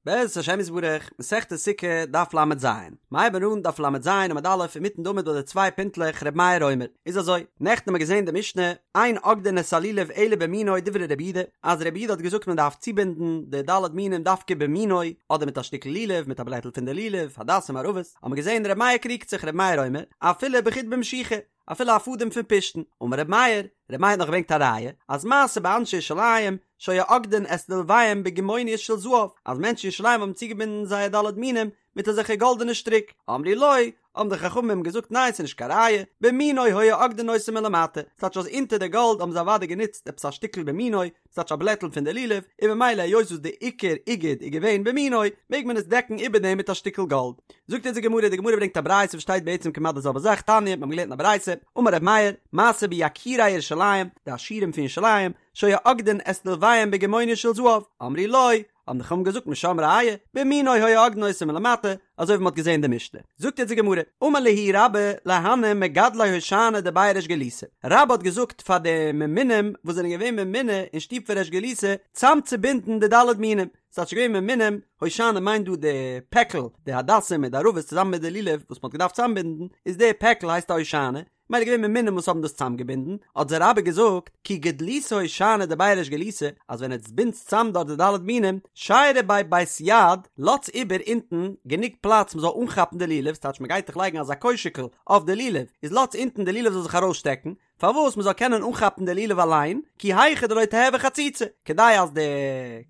בעזרת השם יתברך, מסכת סוכה, דף ל"ז. מ'הייבן אן דף ל"ז עמוד א' אינמיטן די עמוד ביי די צוויי פינטלעך ר' מאיר אומר. איז אזוי, נעכטן האבן מיר געזען די משנה, אין אוגדין את הלולב אלא במינו דברי רבי יהודה, אז רבי יהודה האט געזאגט מען דארף צובינדן די ד' מינים דווקא במינו, אדער מיט א שטיקל לולב, מיט א בלעטל פון די לולב, הדסים ערבות, האבן מיר געזען ר' מאיר קריגט זיך ר' מאיר אומר, אפילו בחוט במשיחה, אפילו א פאדעם פון פשתן, אמר ר' מאיר, ר' מאיר האט נאך געברענגט א ראיה, אז מעשה באנשי ירושלים שהיו אוגדין את לולביהם בגימוניות של זהב, אז מענטשן אין ירושלים האבן צוגעבינדן זייער ד' מינים מיט אזעלכע גאלדענע שטריק, אמרו לו, האבן די חכמים אים געזאגט ניין ס'איז נישט קיין ראיה, במינו היו אוגדין אותו מלמטה, ס'טייטש אז אונטער די גאלד האבן זיי אוודאי גענוצט עפעס א שטיקל במינו, ס'טייטש א בלעטל פון די לולב, און ממילא היות וואס די עיקר איגוד איז געווען במינו, מעג מען עס דעקן איבער דעם מיט א שטיקל גאלד. זאגט אונז די גמרא, די גמרא ברענגט א ברייתא וואס שטייט בעצם כמעט די זעלבע זאך, תניא, מיר האבן געלערנט אין א ברייתא, אמר ר' מאיר, מעשה ביקירי ירושלים, די עשירים פון ירושלים, שהיו אוגדין את לולביהם בגימוניות של זהב, אמרו לו, האבן די חכמים געזאגט משם ראיה, במינו היו אוגדין אותו מלמטה, אזוי ווי מ'האט געזען אין די משנה. זאגט יעצט די גמרא, אמר להו רבה להנהו מגדלי הושענא דבי ריש גלותא, רבה האט געזאגט פאר די ממונים וואס זענען געווען ממונה אין שטוב פון ריש גלותא צאמצובינדן די ד' מינים, ס'טייטש געווען ממונים, הושענא מיינט דא די פעקל, די הדסים מיט די ערבות צוזאמען מיט די לולב וואס מ'האט געדארפט צאמבינדן, איז די פעקל הייסט א הושענא, מילא געווען ממונים וואס האבן דאס צאמגעבינדן, האט זיי רבה געזאגט, כי גדליתו הושענא דבי ריש גלותא, אז ווען עטס בינדטס צאם דארט די ד' מינים, שיירו ביה בית יד, לאטס איבער אונטן גענוג פלאץ מ'זאל אנכאפן די לולב, ס'טייטש מ'גייט דאך לייגן אזא קוישיקל אויף די לולב, איז לאטס אונטן די לולב זאל זיך ארויסשטעקן, פארוואס מ'זאל קענען אנכאפן די לולב אליין, כי היכי דלא תיהוי חציצה, כדי אז די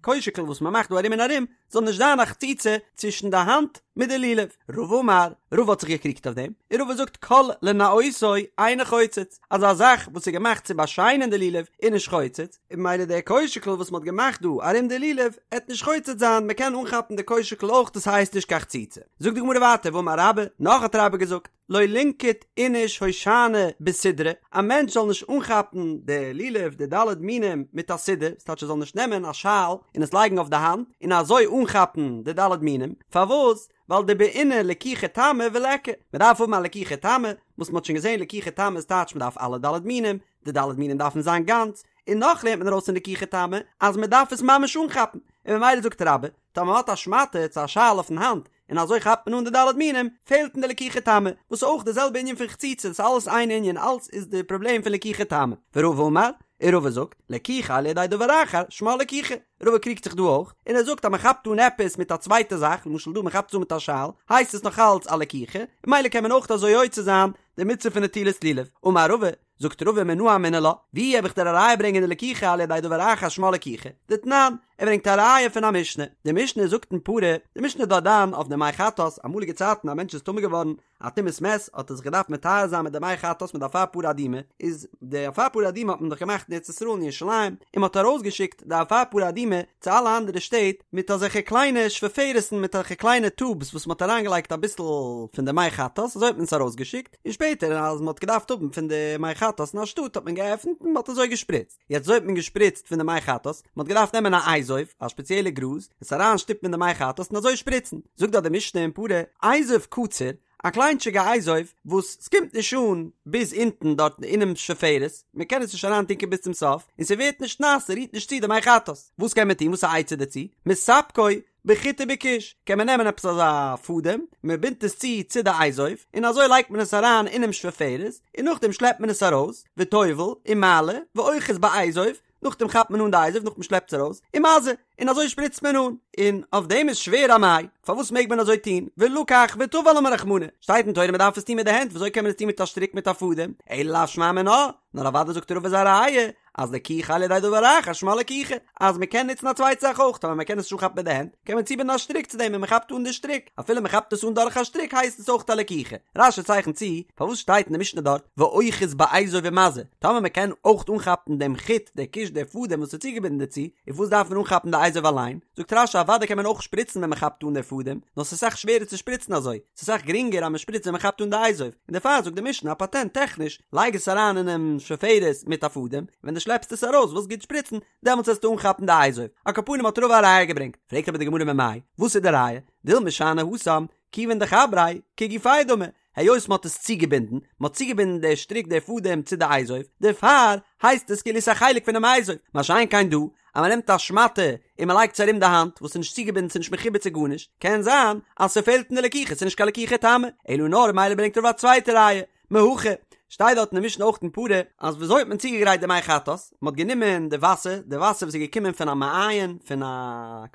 קוישיקל וואס מ'מאכט דא ארום און ארום, זאל נישט זיין א חציצה צווישן די האנט מיט די לולב. רבא אמר, רבא האט זיך געקריגט אויף דעם, און רבא זאגט כל לנאותו אינו חוצץ, אז א זאך וואס איז געמאכט צו באשיינען די לולב איז נישט חוצץ, און ממילא דער קוישיקל וואס מ'האט געמאכט דא ארום די לולב עט נישט חוצץ זיין, מ'קען אנכאפן די קוישיקל אויך דאס הייסט נישט קיין חציצה. זאגט די גמרא ווייטער ואמר רבה, נאך האט רבה געזאגט, לא לינקוט איניש הושענא בסודרא, א מענטש זאל נישט אנכאפן די לולב די ד' מינים מיט א סודר, ס'טייטש ער זאל נישט נעמען א שאל און עס לייגן אויף די האנט און אזוי אנכאפן די ד' מינים, פארוואס? ווייל דבעינא לקיחה תמה וליכא, מען דארף האבן א לקיחה תמה, וואס מען האט שוין געזען לקיחה תמה איז טייטש מען דארף אלע ד' מינים, די ד' מינים דארפן זיין גאנץ, און נאך לערנט מען ארויס פון לקיחה תמה אז מען דארף עס ממש אנכאפן, און ממילא זאגט רבה, טאמער מען האט א שמאטע צו א שאל אויפן האנט און אזוי כאפט מען אן די ד' מינים, פעלט אין די לקיחה תמה, וואס איז אויך די זעלבע ענין פון חציצה, ס'איז אלעס איין ענין, אלעס איז די פראבלעם פון לקיחה תמה. ורבא אמר, און רבא זאגט, לקיחה על ידי דבר אחר, שמה לקיחה. רבא קריגט זיך דא אויך, און ער זאגט אז מען כאפט אן עפעס מיט א צווייטע זאך, למשל דא מען כאפט עס אן מיט א שאל, הייסט עס נאך אלץ א לקיחה, און ממילא קען מען אויך אזוי יוצא זיין די מצוה פון נטילת לולב. אמר רבא, זאגט רבא מנא אמינא לה, ווי האב איך דיר א ראיה ברענגען די לקיחה על ידי דבר אחר שמה לקיחה? דתנן, ער ברענגט א ראיה פון א משנה, די משנה זאגט אין פרה, די משנה איז דארט דן אויף די מי חטאת, אמאליגע צייטן א מענטש איז טמא געווארן א טומאת מת האט ער זיך געדארפט מטהר זיין מיט די מי חטאת מיט די אפר פרה אדומה, איז די אפר פרה אדומה האט מען דאך געמאכט אין ארץ ישראל אין ירושלים, און מען האט ארויסגעשיקט די אפר פרה אדומה צו אלע אנדערע שטעט מיט אזעלכע קליינע שפופרת'ן מיט אזעלכע קליינע טובס וואס מען האט אריינגעלייגט אביסל פון די מי חטאת אזוי האט מען עס ארויסגעשיקט. און שפעטער אז מען האט געדארפט האבן פון די מי חטאת אין א שטאט האט מען געעפנט און מען האט אזוי געשפריצט, יעצט אזוי האט מען געשפריצט פון די מי חטאת, מען האט געדארפט נעמען א אזוב, א שפעציעלע גראז, עס אריין שטופן אין די מי חטאת און אזוי שפריצן, זאגט דארט די משנה אין פרה, אזוב קצר, א קליינטשיגע אזוב וואס ס'קומט נישט אן ביז אונטן דארט אינעם שפופרת, מען קען עס נישט אריין טונקען ביז צום סוף, און ס'ווערט נישט נאס, ס'רירט נישט צו די מי חטאת, וואס קען מען טון, וואס איז א עצה דערצו, מספקו, בחוט ובכוש, קען מען נעמען עפעס אזא פאדעם, מען בינדט עס צו צו די אזוב, און אזוי לייגט מען עס אריין אינעם שפופרת, און נאכדעם שלעפט מען עס ארויס, וטובל, ומעלה, ואוחז באזוב, נאכדעם כאפט מען אן די אזוב נאכדעם שלעפט עס ארויס, ומזה, און אזוי שפריצט מען אן. און אויף דעם איז שווער אמאי, פארוואס מעג מען אזוי טון, ולקח וטבל אמר רחמנא, שטייט אין תורה מען דארף עס טון מיט די הענט, וויאזוי קען מען עס טון מיט א שטריק מיט א פאדעם, אלא לאו שמע מינה, נאר אוודאי זאגט רבא איז א ראיה, אז לקיחה על ידי דבר אחר שמה לקיחה, אז מען קען נוצן א צווייטע זאך אויך, טאמער מען קען עס נישט אנכאפן מיט די הענט, קען מען צובינדן א שטריק צו דעם און מען כאפט אן די שטריק, אפילו מען כאפט עס אן דורך א שטריק הייסט עס אויך א לקיחה. רש"י צייכנט צו, פארוואס שטייט אין די משנה דארט ואוחז באזוב ומזה, טאמער מען קען אויך אנכאפן דעם חוט, דער כוש, דער פאדעם וואס איז צוגעבינדן דערצו, און פארוואס דארף מען אנכאפן די אזוב אליין? זאגט רש"י אוודאי קען מען אויך שפריצן ווען מען כאפט אן דער פאדעם, נאר ס'איז אסאך שווערער צו שפריצן אזוי, ס'איז אסאך גרינגער אז מען שפריצט ווען מען כאפט אן די אזוב, און דערפאר זאגט די משנה א פאטענט טעכניש, לייג עס אריין אינעם שפופרת מיט א פאדעם, ווען דו שלעפסט עס ארויס ווילסט גוט שפריצן, דעמאלטס וועסטו אנכאפן די אזוב. על כל פנים האט רבא א ראיה געברענגט. פרעגט אבער די גמרא ממאי, וואס איז די ראיה? דילמא שאני התם, כיוון דחבריה, כגופיה דמי, היות מען האט עס צוגעבינדן, מען האט צוגעבינדן די שטריק די פאדעם צו די אזוב, דערפאר הייסט עס כאילו עס איז א חלק פונעם אזוב, מה שאין כן דא, אז מען נעמט א שמאטע און מען לייגט עס ארום די האנט, וואס איז נישט צוגעבינדן ס'איז נישט מחובר צו גארנישט, קען זיין אז ס'פעלט אין די לקיחה, ס'איז נישט קיין לקיחה תמה, אלא נאר מילא ברענגט רבא א צווייטע ראיה, מהכא, שטייט דארט אין די משנה אויך אין פרה, אז וויאזוי האט מען צוגעגרייט די מי חטאת, מען האט גענומען די וואסער, די וואסער וואס איז געקומען פון א מעיין, פון א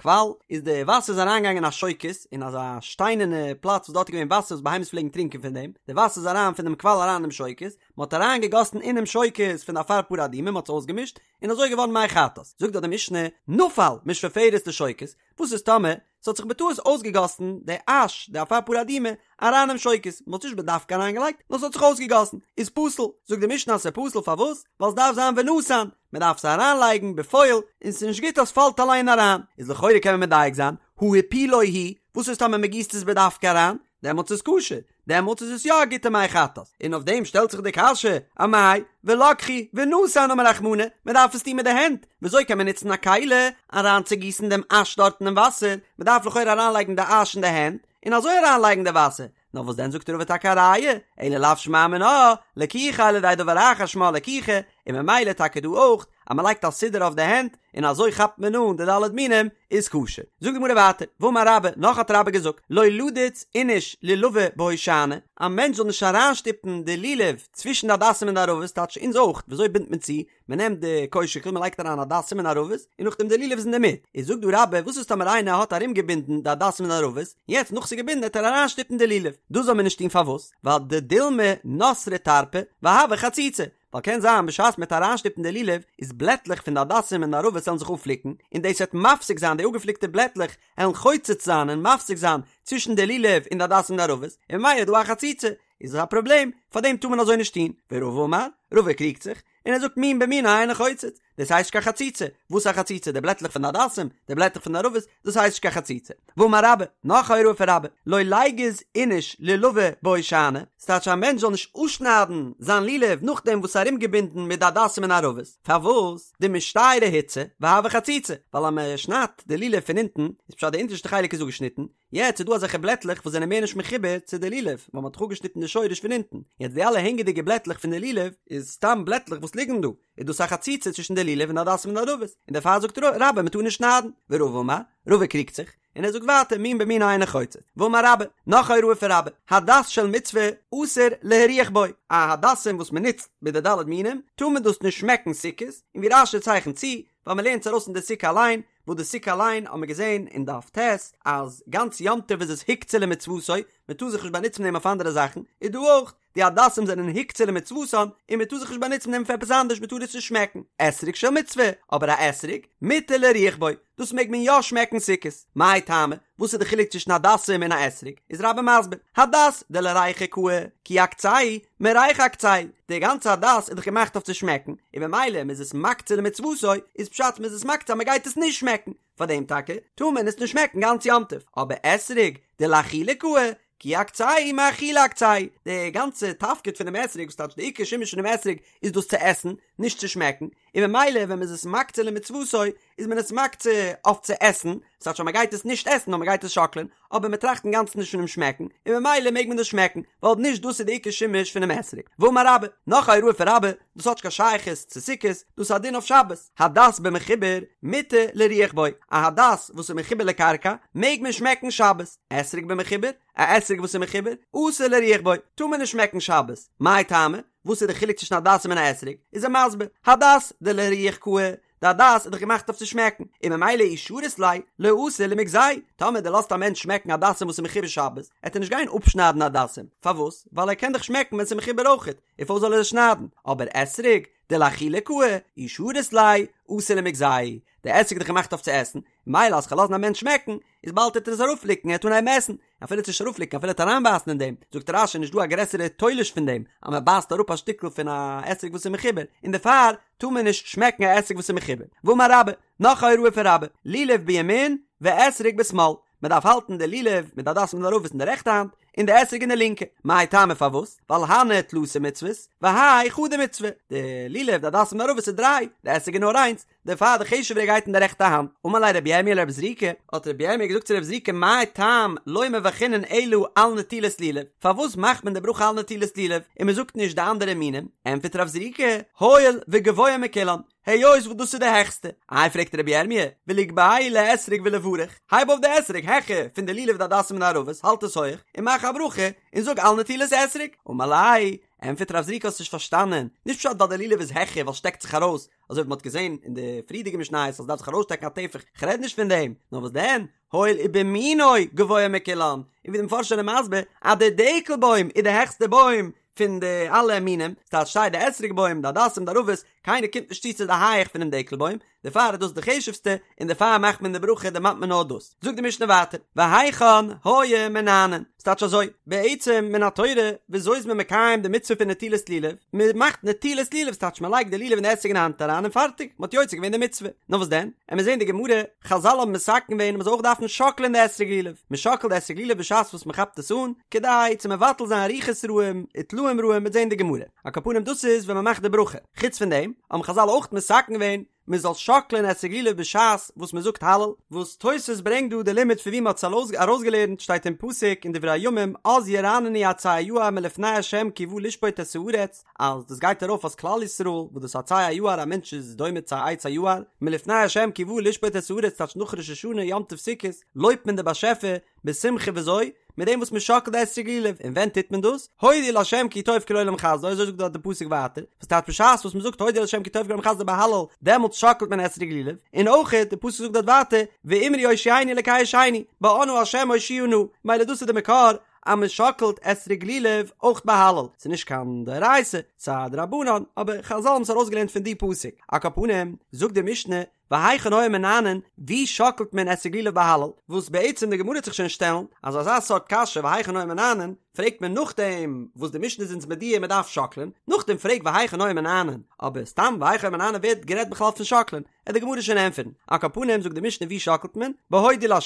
קוואל, איז די וואסער איז אריינגעגאנגען אין א שוקת, אין אזא שטיינערנע פלאץ וואס דארט איז געווען וואסער וואס בהמות פלעגן טרינקען פון דעם, די וואסער איז אריין פון דעם קוואל אריין אינעם שוקת, מען האט אריין געגאסן אינעם שוקת פון די אפר פרה אדומה, מען האט עס אויסגעמישט, און אזוי איז געווארן מי חטאת. זאגט דארט די משנה, נפל משפופרת לשוקת, וואס איז טאמער ס'האט זיך בטעות אויסגעגאסן די אש, די אפר פרה אדומה, אריין אינעם שוקת, מ'האט עס נישט בדווקא אריינגעלייגט, נאר ס'האט זיך אויסגעגאסן, איז פסול, זאגט די משנה אז ס'איז פסול פארוואס? ווייל ס'דארף זיין ונתן, מ'דארף עס אריינלייגן בפועל, און ס'איז נישט גוט אז ס'פאלט אליין אריין, איז לכאורה קען מען מדייק זיין, הא הפילו הוא, וואס איז טאמער מ'גיסט עס בדווקא אריין, דעמאלטס איז כשר, דעמאלטס איז עס יא א גוטע מי חטאת, און אויף דעם שטעלט זיך די קשיא, אמאי, ולקחו, ונתן אמר רחמנא, מען דארף עס טון מיט די הענט, וויאזוי קען מען נוצן א כלי אריינצוגיסן דעם אש דארט אינעם וואסער, מען דארף לכאורה אריינלייגן די אש אין די הענט, און אזוי אריינלייגן די וואסער, נאר וואס דען זאגט רבא טאקע א ראיה, אלא לאו שמע מינה, לקיחה על ידי דבר אחר שמה לקיחה, און ממילא טאקע דא אויך, אז מען לייגט א סודר אויף די הענט, און אזוי כאפט מען אן די ד' מינים, איז כשר. זאגט די גמרא ווייטער, ואמר רבה, נאך האט רבה געזאגט, לא לידוץ איניש לולבא בהושענא, א מענטש זאל נישט אריינשטופן די לולב צווישן די הדסים און די ערבות, טייטש אונז אויך, וויאזוי בינדט מען צו? מען נעמט די קוישיקל, מען לייגט אריין הדסים און ערבות, און נאכדעם די לולב איז אינדערמיט. איז זאגט דא רבה, וואס איז טאמער איינער האט ארומגעבינדן די הדסים און ערבות, יעצט נאך ס'איז געבינדן וועט ער אריינשטופן די לולב, דאס זאל מען נישט טון פארוואס? ווייל דדילמא נתרי טרפי והוי חציצה, ווייל קען זיין בשעת מ'וועט אריינשטופן די לולב איז בלעטלעך פון די הדסים און ערבות וועלן זיך אפפליקן און דאס וועט מפסיק זיין די אפגעפליקטע בלעטלעך וועלן חוצץ זיין און מפסיק זיין צווישן די לולב און די הדסים און ערבות און ממילא איז דא א חציצה איז עס א פראבלעם פאר דעם טאר מען אזוי נישט טון ורבא אמר רבא קריגט זיך און ער זאגט מין במינו אינו חוצץ דאס הייסט נישט קיין חציצה, וואס איז א חציצה? די בלעטלעך פון די הדסים, די בלעטלעך פון די ערבות, דאס הייסט נישט קיין חציצה. ואמר רבה, נאך א הוראה פון רבה, לא ליגוז איניש לולבא בהושענא, ס'טייטש א מענטש זאל נישט אפשניידן זיין לולב נאכדעם וואס ס'איז ארומגעבינדן מיט די הדסים און ערבות, פארוואס? דמשתיירי הוצי והוי חציצה, ווייל אז מען שניידט די לולב פון אונטן, איז פשט די אונטערשטע חלק איז אפגעשניטן, יעצט איז דא אזעלכע בלעטלעך וואס זענען מער נישט מחובר צו די לולב, ווייל מען האט דאך אפגעשניטן די שורש פון אונטן, יעצט די אלע הענגעדיגע בלעטלעך פון די לולב איז סתם בלעטלעך וואס ליגן דא, איז דאס א חציצה צווישן די לולב און די הדסים און די ערבות, און דערפאר זאגט רבה מען טאר נישט שניידן, ורבא אמר, רבא קריגט זיך, און ער זאגט ווייטער מין במינו אינו חוצץ, ואמר רבה, נאך א הוראה פון רבה, הדס של מצוה אסור להריח בו, א הדסים וואס מען נוצט מיט די ד' מינים, טאר מען דאס נישט שמעקן סוכות, און ווי רש"י צייכנט צו, ווייל מען לערנט עס ארויס אין די סוכה אליין, וואס די סוכה אליין האט מען געזען אין דף ט' אז גאנץ יום טוב איז עס הוקצה למצוותו, מען טאר זיך נישט באנוצן מיט דעם אויף אנדערע זאכן, איז דא אויך, די הדסים זענען הוקצה למצוותן, און מען טאר זיך נישט באנוצן מיט דעם פאר עפעס אנדערש, מען טאר עס נישט שמעקן. אתרוג של מצוה, אבער א אתרוג, מותר להריח בו, דאס מעג מען יא שמעקן סוכות. מאי טעמא, וואס איז די חילוק צווישן הדסים און א אתרוג? איז רבה מסביר, הדס דלריחא קאי, כי אקצהו, מריחא אקצהו, די גאנצע הדס איז דאך געמאכט אויף צו שמעקן, און ממילא מען איז עס מקצה למצוותו, איז פשט מען איז עס מקצה אז מען גייט עס נישט שמעקן, פאר דעם טאקע טאר מען עס נישט שמעקן גאנץ יום טוב, אבער אתרוג דלאכילה קאי, כי אקצהו מאכילה אקצהו, די גאנצע תפקיד פונעם אתרוג, וואס טייטש די עיקר שימוש פונעם אתרוג איז דאס צו עסן, נישט צו שמעקן, און ממילא ווען מען איז עס מקצה למצוותו איז מען עס מקצה אויף צו עסן, ס'טייטש אז מען גייט עס נישט עסן נאר מען גייט עס שאקלען, אבער מען טראכט אינגאנצן נישט פונעם שמעקן, און ממילא מעג מען דאס שמעקן, ווייל נישט דאס איז די עיקר שימוש פונעם אתרוג. ואמר רבה, נאך א הוראה פון רבה, דאס האט נישט קיין שייכות צו סוכות, דאס איז א דין אויף שבת, הדס במחובר מותר להריח בו, א הדס וואס איז מחובר לקרקע מעג מען שמעקן שבת, אתרוג במחובר, א אתרוג וואס איז מחובר, אסור להריח בו, טאר מען נישט שמעקן שבת, מאי טעמא? וואס איז די חילוק צווישן הדסים און א אתרוג? איז ער מסביר, הדס דלהריח קאי, די הדס איז דאך געמאכט אויף צו שמעקן, און ממילא אי שרית ליה, לא אתי למגזייה, טאמער דו לאזט א מענטש שמעקן הדסים וואס איז מחובר שבת, עט ער נישט גיין אפשניידן הדסים, פארוואס? ווייל ער קען דאך שמעקן ווען ס'איז מחובר אויכעט, און פארוואס זאל ער עס שניידן? אבער אתרוג, דלאכילה קאי, אי שרית ליה, אתי למגזייה, די אתרוג איז דאך געמאכט אויף צו עסן, ממילא אז כ'וועל לאזן א מענטש שמעקן, איז באלד וועט ער עס אראפפליקן, ער וועט אנהייבן עסן, אפילו צו נישט אראפפליקן אפילו ער וועט אריינבייסן אין דעם, זאגט רש"י נישט דא א גרעסערע תולש פון דעם, אז מען בייסט אראפ א שטיקל פון א אתרוג וואס איז מחובר, און דערפאר טאר מען נישט שמעקן א אתרוג וואס איז מחובר. ואמר רבה, נאך א הוראה פון רבה, לולב בימין ואתרוג בשמאל, מען דארף האלטן די לולב מיט די הדסים און ערבות אין די רעכטע האנט, און די אתרוג אין די לינקע, מאי טעמא פארוואס? ווייל הני תלתא מצוות, והאי חדא מצוה, די לולב די הדסים און ערבות איז דריי, די אתרוג איז נאר איינס, דערפאר די חשוב'ערע גייט אין די רעכטע האנט. אמר ליה רבי ירמיה לרב זריקא, האט רבי ירמיה געזאגט צו רב זריקא מאי טעם לא מברכינן אלא על נטילת לולב, פארוואס מאכט מען די ברכה על נטילת לולב און מען זאגט נישט די אנדערע מינים? ענטפערט רב זריקא, הואיל וגבוה מכולן, היות וואס דאס איז די העכסטע. איי פרעגט רבי ירמי', וליגבהו לאתרוג ולברך, הייב אויף די אתרוג העכער פון די לולב די הדסים און די ערבות, האלט עס הויך, און מאך א ברכה, און זאג על נטילת אתרוג. אמר ליה, ענטפערט רב זריקא האסט נישט פארשטאנען, נישט פשט ווייל די לולב איז העכער ווייל שטעקט זיך ארויס, אזוי ווי מ'האט געזען אין די פריערדיגע משניות אז ס'דארף זיך ארויסשטעקן א טפח, כ'רעד נישט פון דעם, נאר וואס דען, הואיל ובמינו גבוה מכולן, און ווי די מפרשים זענען מסביר אז די דקל בוים איז די העכסטע בוים פון די אלע מינים, ס'טייטש סיי די אתרוג בוים, די הדסים, די ערבות, קיינער קומט נישט צו צו די הייעך פונעם דקל בוים, דערפאר איז דאס די חשוב'סטע, און דערפאר מאכט מען די ברכה דערמאנט מען נאר דאס. זאגט די משנה ווייטער, והיכן היו מנענעין, ס'טייטש אזוי, בעצם מן התורה, וויאזוי איז מען מקיים די מצוה פון נטילת לולב? מען מאכט נטילת לולב, ס'טייטש מען לייגט די לולב און די אתרוג אין די האנט אריין און פארטיג, מען האט יוצא געווען די מצוה. נאר וואס דען? עמיר זען די גמרא, חזל האבן מתקן געווען מען זאל אויך דארפן שאקלען די אתרוג לולב, מען שאקלט די אתרוג לולב בשעת וואס מען כאפט עס אן, כדי צו מבטל זיין רוחות רעים וטלאים רעים, מ'וועט זען די גמרא. על כל פנים דאס איז ווען מען מאכט די ברכה. חוץ פון דעם האבן חזל אויך מתקן געווען מען זאל שאקלען אתרוג לולב בשעת וואס מען זאגט הלל, וואס תוס' ברענגט דא די לימוד פון ווי מען האט עס ארויסגעלערנט שטייט אין פסוק אין דברי הימים אז ירננו עצי היער מלפני ה' כי בא לשפוט את הארץ, אז דאס גייט ארויף אז כלל ישראל וואס דאס עצי היער א מענטש איז דומה צו א עץ היער, מלפני ה' כי בא לשפוט את הארץ טייטש נאך ראש השנה יום טוב סוכות לויבט מען די באשעפער בשמחה וויאזוי? מיט דעם וואס מען שאקלט די אתרוג לולב, און ווען טוט מען דאס? הודו לה' כי טוב כי לעולם חסדו, אזוי זאגט דארט די פסוק ווייטער, וואס טייטש בשעת וואס מען זאגט הודו לה' כי טוב כי לעולם חסדו ביי הלל, דעמאלטס שאקלט מען אתרוג לולב, און אויך די פסוק זאגט דארט ווייטער, ואמרו הושיענו אלקי ישענו, באנא ה' הושיעה נא, מילא דאס איז די מקור אז מען שאקלט אתרוג לולב אויך ביי הלל, ס'איז נישט קיין דאורייתא, ס'איז א דרבנן, אבער חזל האבן עס ארויסגעלערנט פון די פסוק, על כל פנים, זאגט די משנה, והיכן היו מנענעין, ווי שאקלט מען אתרוג לולב ביי הלל, וואס בעצם די גמרא וועט זיך שוין שטעלן, אז אזא סארט קשיא והיכן היו מנענעין, פרעגט מען נאכדעם וואס די משנה איז אונז מודיע מען דארף שאקלען, נאכדעם פרעג והיכן היו מנענעין, אבער סתם והיכן היו מנענעין ווערט גערעדט בכלל פון שאקלען, עט די גמרא שוין ענטפערן, על כל פנים זאגט די משנה ווי שאקלט מען, בהודו לה',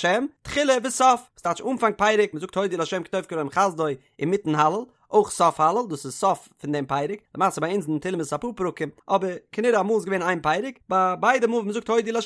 תחילה וסוף, וואס טייטש אנפאנג פרק, מען זאגט הודו לה' כי טוב כי לעולם חסדו אינמיטן הלל, אויך סוף הלל, דאס איז סוף פון דעם פרק, למעשה ביי אונז אין תהלים איז עס אפאר פרקים, אבער כנראה אמאל איז געווען איין פרק, ביי ביידע מאל ווען מען זאגט הודו לה'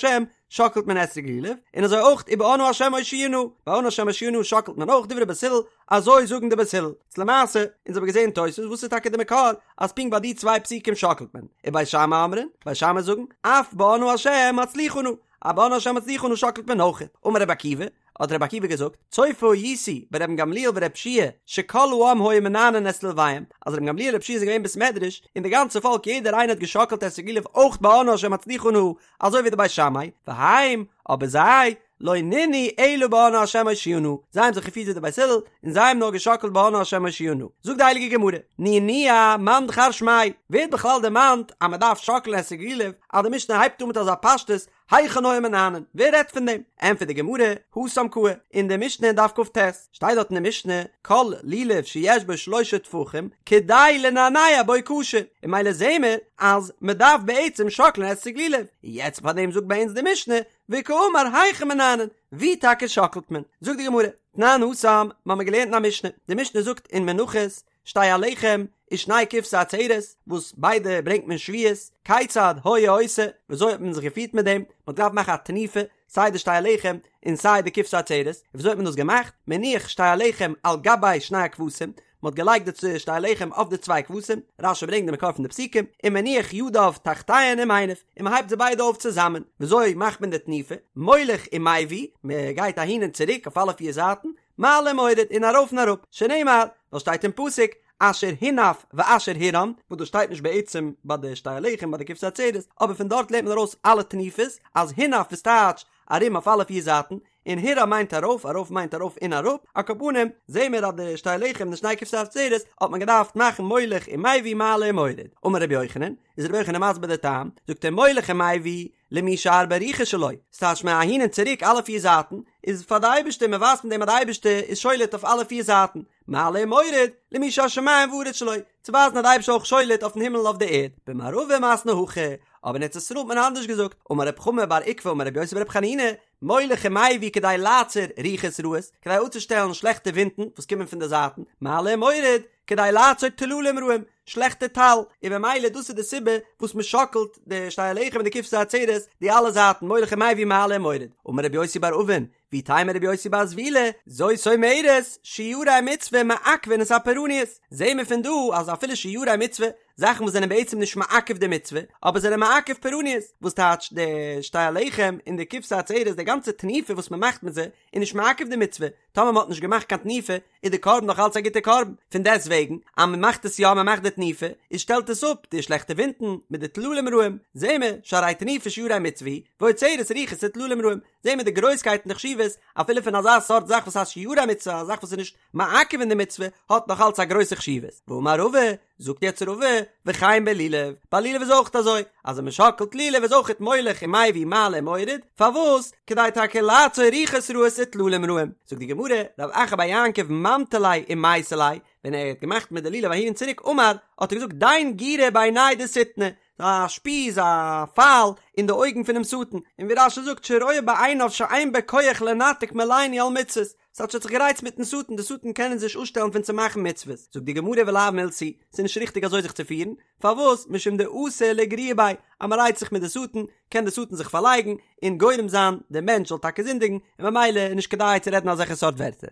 שאקלט מען אתרוג לולב, און אזוי אויך ובאנא ה' הושיעה נא, ביי אנא ה' הושיעה נא שאקלט מען אויך דברי בית הלל, אזוי זאגן די בית הלל. איז למעשה, אונז האבן געזען תוס' וואס איז טאקע די מקור אז פונקט ביי די צוויי פסוקים שאקלט מען, ובית שמאי אומרים, בית שמאי זאגן, אף באנא ה' הצליחה נא, אז באנא ה' הצליחה נא שאקלט מען אויך, אמר רבי עקיבא, האט רבי עקיבא געזאגט, צופה הייתי ברבן גמליאל ורבי יהושע שכל העם היו מנענעין את לולביהם, אז רבן גמליאל רבי יהושע זענען געווען אין בית מדרש, און די גאנצע פאלק יעדער איינער האט געשאקלט אתרוג לולב אויך ביי אנא השם הצליחה נא, אזוי ווי די בית שמאי, והם, אבער זיי, לא ננעו אלא באנא השם הושיעה נא, זיי האבן זיך געפירט ווי די בית הלל, און זיי האבן נאר געשאקלט ביי אנא השם הושיעה נא. זאגט די הייליגע גמרא, נענוע מאן דכר שמיה, ווער האט בכלל דערמאנט אז מען דארף שאקלען אתרוג לולב, אז די משנה הייבט אן מיט אזא פשטות, היכן היו מנענעין? ווער רעדט פון דעם? ענטפערט די גמרא, התם קאי, אין די משנה אין דף כ"ט, שטייט דארט אין די משנה, כל לולב שיש בו שלשה טפחים, כדי לנענע בו כשר, און ממילא זעהן מיר אז מען דארף בעצם שאקלען אתרוג לולב, און יעצט פאר דעם זאגט ביי אונז די משנה, וקאמר היכן מנענעין, ווי טאקע שאקלט מען? זאגט די גמרא, תנן התם, מ'האמיר געלערנט אין א משנה, די משנה זאגט אין מנחות, שתי הלחם ושני כבשי עצרת, וואס ביידע ברענגט מען שבועות, כיצד היה עושה, וויאזוי האט מען זיך געפירט מיט דעם, מען האט געדארפט מאכן א תנופה, סיי די שתי הלחם און סיי די כבשי עצרת, און וויאזוי האט מען דאס געמאכט, מניח שתי הלחם על גבי שני הכבשים, מען האט געלייגט די שתי הלחם אויף די צוויי כבשים, רש"י ברענגט די מקור פון די פסוקים, ומניח ידיו תחתיהן ומניף, און מען הייבט זיי ביידע אויף צוזאמען, וויאזוי מאכט מען די תנופה, מוליך ומביא, מען גייט אהין און צוריק אויף אלע פיר זייטן, מעלה ומוריד און ארויף און אראפ, שנאמר, ווייל שטייט אין פסוק, אשר הונף ואשר הורם, וואס דאס שטייט נישט בעצם ביי די שתי הלחם ביי די כבשי עצרת, אבער פון דארט לערנט מען ארויס אלע תנופות, אז הונף איז טייטש ארום אויף אלע פיר זייטן, און הורם מיינט ארויף, ארויף מיינט ארויף און אראפ, על כל פנים, זעהן מיר אז די שתי הלחם און די שני כבשי עצרת האט מען געדארפט מאכן מוליך ומביא מעלה ומוריד. אמר רבי יוחנן, איז רבי יוחנן מסביר די טעם, זאגט ער מוליך ומביא, למי שהרבה רוחות שלו, ס'טייטש מען אהין און צוריק אלע פיר זייטן, איז פאר די אייבערשטער, מען ווייזט מיט דעם אז די אייבערשטער איז שולט אויף אלע פיר זייטן, מעלה ומוריד, למי שהשמים והארץ שלו, צו ווייזן אז די אייבערשטער איז אויך שולט אויפן הימל און אויף די ערד, במערבא מתני הכי, אבער אין ארץ ישראל האט מען אנדערש געזאגט, אמר רב חמא בר עוקבא אמר רבי יוסי ברבי חנינא, מוליך ומביא כדי לעצור רוחות רעות, כדי אפצושטעלן שלעכטע ווינטן וואס קומען פון די זייטן, מעלה ומוריד, כדי לעצור טללים רעים, שלעכטע טל, און במילא דאס איז די סיבה וואס מען שאקלט די שתי הלחם און די כבשי עצרת די אלע זייטן מוליך ומביא מעלה ומוריד, אמר רבי יוסי בר אבין, ואיתימא רבי יוסי בר זבילא, זאת אומרת, שיורי מצוה מעכבין את הפורעניות, זעהן מיר פון דא אז אפילו שיורי מצוה, זאכן וואס זענען בעצם נישט מעכב די מצוה, אבער זענען מעכב פורעניות, וואס טייטש די שתי הלחם און די כבשי עצרת, די גאנצע תנופה וואס מען מאכט מיט זיי, איז נישט מעכב די מצוה, טאמער מען האט נישט געמאכט קיין תנופה, איז די קרבן נאך אלץ א גוטע קרבן, פון דעסט וועגן אז מען מאכט עס יא, מען מאכט די תנופה, איז שטעלט עס אפ די שלעכטע ווינטן מיט די טללים רעים, זעהן מיר, שהרי תנופה שיירי מצוה היא, ועוצרת רוחות וטללים רעים, זעהן מיר די גרויסקייט און די חשיבות אפילו פון אזא סארט זאך וואס הייסט שיירי מצוה, א זאך וואס איז נישט מעכב אין די מצוה, האט נאך אלץ א גרויסע חשיבות. ואמר רבא, זאגט יעצט רבא, וכן בלולב, ביי לולב איז אויך אזוי, אז ווען מען שאקלט לולב איז אויכעט מוליך ומביא מעלה ומוריד, פארוואס? כדי טאקע לעצור רוחות רעות וטללים רעים. זאגט די גמרא, רב אחא בר יעקב ממטי ליה ומייתי ליה, ווען ער האט געמאכט מיט די לולב אהין און צוריק אמר, האט ער געזאגט דין גירא בעיניה דשטנא, א שפיז, א פייל, אין די אויגן פונעם שטן, און ווי רש"י זאגט שרואה בעיניו שאין בו כח לנתק מלעיני על מצוות, ס'טייטש ער האט זיך גערייצט מיטן שטן, די שטן קען אונז נישט אפשטעלן פון צו מאכן מצוות, זאגט די גמרא ולאו מילתא היא, ס'איז נישט ריכטיג אזוי זיך צו פירן, פארוואס? משום דאתי לאיגרויי ביה, אז מ'רייצט זיך מיט די שטן, קען די שטן זיך פארלייגן, און גורם זיין דער מענטש זאל טאקע זינדיגן, און ממילא איז נישט כדאי צו רעדן אזעלכע סארט ווערטער.